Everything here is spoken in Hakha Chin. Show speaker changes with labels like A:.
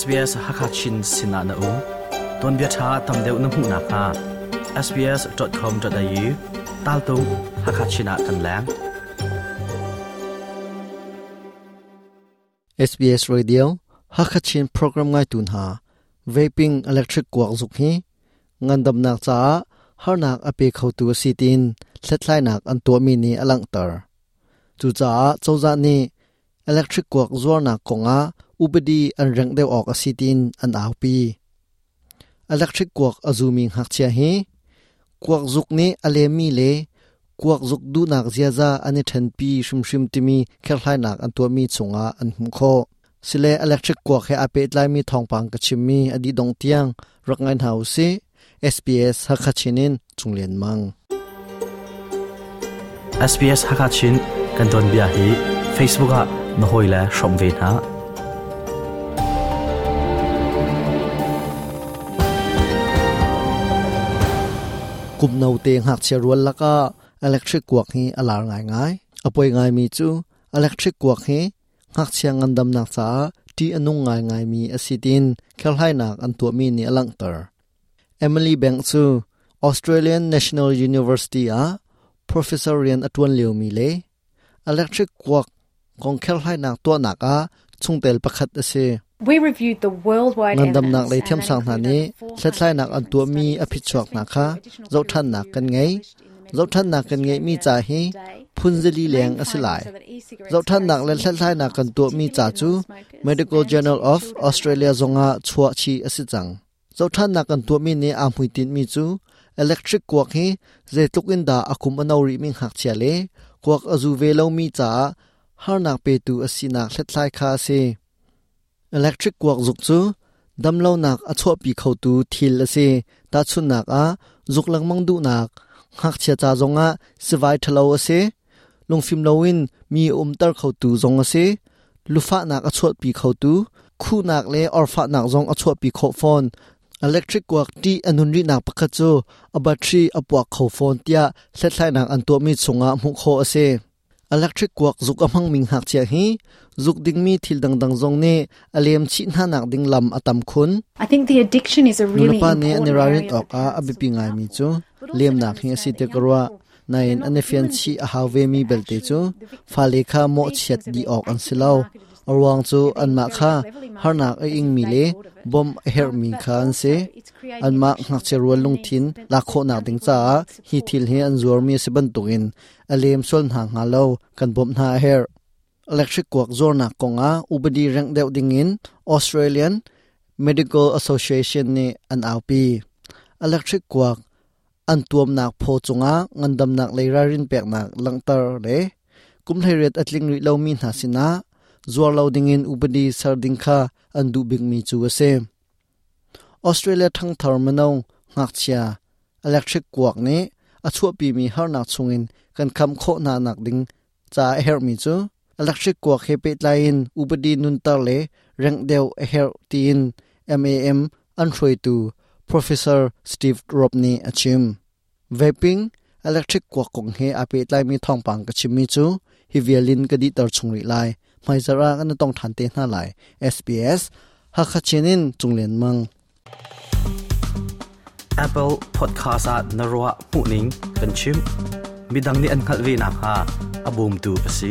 A: SBS Hakachin sinah na um. Tuanbia ṭha tam deuh na hmuh nakhnga sbs.com.au taltung Hakachin ah kan leng.
B: SBS Radio Hakachin program ngai tu hna vaping electric kuak zuk hi ngandamnak caah harnak a pe khotu a si tiin hlathlainak an tuahmi nih a langhter. Cucaah cozah nih electric kuak zuarnak kongah upadi an rengh deuh awk a si tiin an aupi. Electric kuak a zumi ngakchia hi kuak zuk nih a lemmi le kuak zuk duhnak ziaza an i ṭhenpi hrimhrim timi kherhhlainak an tuahmi chungah an hmuh khawh. Sile electric kuak he aa pehtlaimi thawngpang ka chimmi a dih dong tiang rak ngai hna usih. SBS Hakha in Chunglian Mang.
A: SBS Hakachin kan tuanbia hi Facebook ah na hawile hrawm ve hna.
B: Kum no te ngakchia rual lakah electric kuak hi a lar ngaingai. A poi ngaimi cu electric kuak hi ngakchia ngandamnak caah ṭih a nung ngaingaimi a si tiin kherhlainak an tuahmi nih a langhter. Emily Bank cu Australian National University ah professor rian a ṭuan liomi le electric kuak kong kherhlainak tuahnak ah chungtel pakhat a si.
C: We reviewed the worldwide
B: Ngandamnak
C: evidence
B: lei
C: and that
B: thiamsang hna
C: included
B: nih
C: over 400
B: hlathlainak an
C: different
B: tuahmi
C: studies
B: a phichuak hna
C: assessing
B: kha
C: two additional peer
B: zohṭhannak
C: review
B: kan ngei.
C: published in the Medical
B: Zohṭhannak
C: Journal of
B: kan ngeihmi
C: Australia
B: ca hi
C: today.
B: phunzali
C: The
B: leng
C: main
B: a si lai.
C: findings are that e-cigarettes carry
B: Zohṭhannak le
C: significant
B: hlathlainak kan
C: harms,
B: tuahmi
C: particularly
B: ca
C: to
B: cu
C: non-smokers
B: Medical
C: and
B: Journal
C: to
B: of
C: children and
B: Australia
C: adolescents.
B: zongah chuah chih a si cang. Zohṭhannak kan tuahmi nih aa hmuitinhmi cu electric kuak hi zeitluk in dah a kum a no rihmi ngakchia le kuak a zu ve lomi caah harnak petu a sinak hlathlai kha a si. Electric kuak zuk cu damlonak a chuahpi khotu thil a si. Tahchunhnak ah, zuk lengmang duhnak, ngakchia ca zongah sivai ṭhalo a si. Lungfim loin mi a umter khotu zong a si. Lufahnak a chuahpi khotu, khuhnak le orfahnak zong a chuahpi khawh fawn. Electric kuak ṭih a nun rihnak pakhat cu a battery a puak kho fawn tiah hlathlainak an tuahmi chungah hmuh khawh a si. Electric kuak zuk a hmangmi ngakchia hi zuk dingmi thil dangdang zong nih a lem chih hnanak ding lam a tam khun.
C: I think the addiction is a really
B: Nulepa nih an i
C: important
B: ralrin
C: area for
B: awkah a
C: parents to
B: biapi
C: look out
B: ngaimi
C: for,
B: cu
C: but also to
B: lemnak hi a si
C: understand that
B: ti ka
C: young
B: ruah.
C: people,
B: Nain
C: they're
B: an i
C: not
B: fian
C: villains
B: chih
C: in
B: a
C: this
B: hau
C: case,
B: vemi
C: they're
B: belte cu
C: actually the victims.
B: fale kha
C: These
B: mawhchiat
C: things are
B: dih
C: being
B: awk an si
C: actively
B: lo.
C: marketed as
B: A ruang cu
C: they're being
B: anmah
C: very
B: kha
C: cleverly marketed
B: harnak a
C: as if
B: ingmi
C: they
B: le
C: thought of it.
B: bawmh a herhmi
C: But
B: kha an si.
C: also it's creating
B: Anmah
C: addiction
B: ngakchia rual
C: and needs
B: lungthin
C: that
B: lak
C: that
B: khawhnak
C: young
B: ding
C: people
B: caah
C: need
B: hi
C: support
B: thil
C: to
B: hi an zuarmi a si bantukin a lem sual hna hnga lo kan bawmh hna a herh. Electric kuak zuarnak kongah upadi rengh deuh dingin Australian Medical Association nih an aupi. Electric kuak an tuamnak phaw cungah ngandamnak lei ralrin peknak langhter le kum 18 a tling rih lomi hna sinah zuar lo dingin upadi ser ding kha an duh bikmi cu a si. Australia ṭhangthar mino ngakchia electric kuak nih a chuahpimi harnak chungin kan khamh khawh hna nak ding caah a herhmi cu electric kuak he pehtlai in upadi nunter le rengh deuh a herh tiin MAM an hruaitu Professor Steve Robb nih a chim. Vaping electric kuak kong he aa pehtlaimi thawngpang ka chimmi cu hi vial in ka dihter chung rih lai. Hmaizarh ah kan i tong ṭhan te hna lai. SBS Hakha Chin in Cunglian Mang.
A: Apple Podcast ah na ruah hmuhning kan chim. Midang nih an hngalh ve nakhnga a bawmtu a si.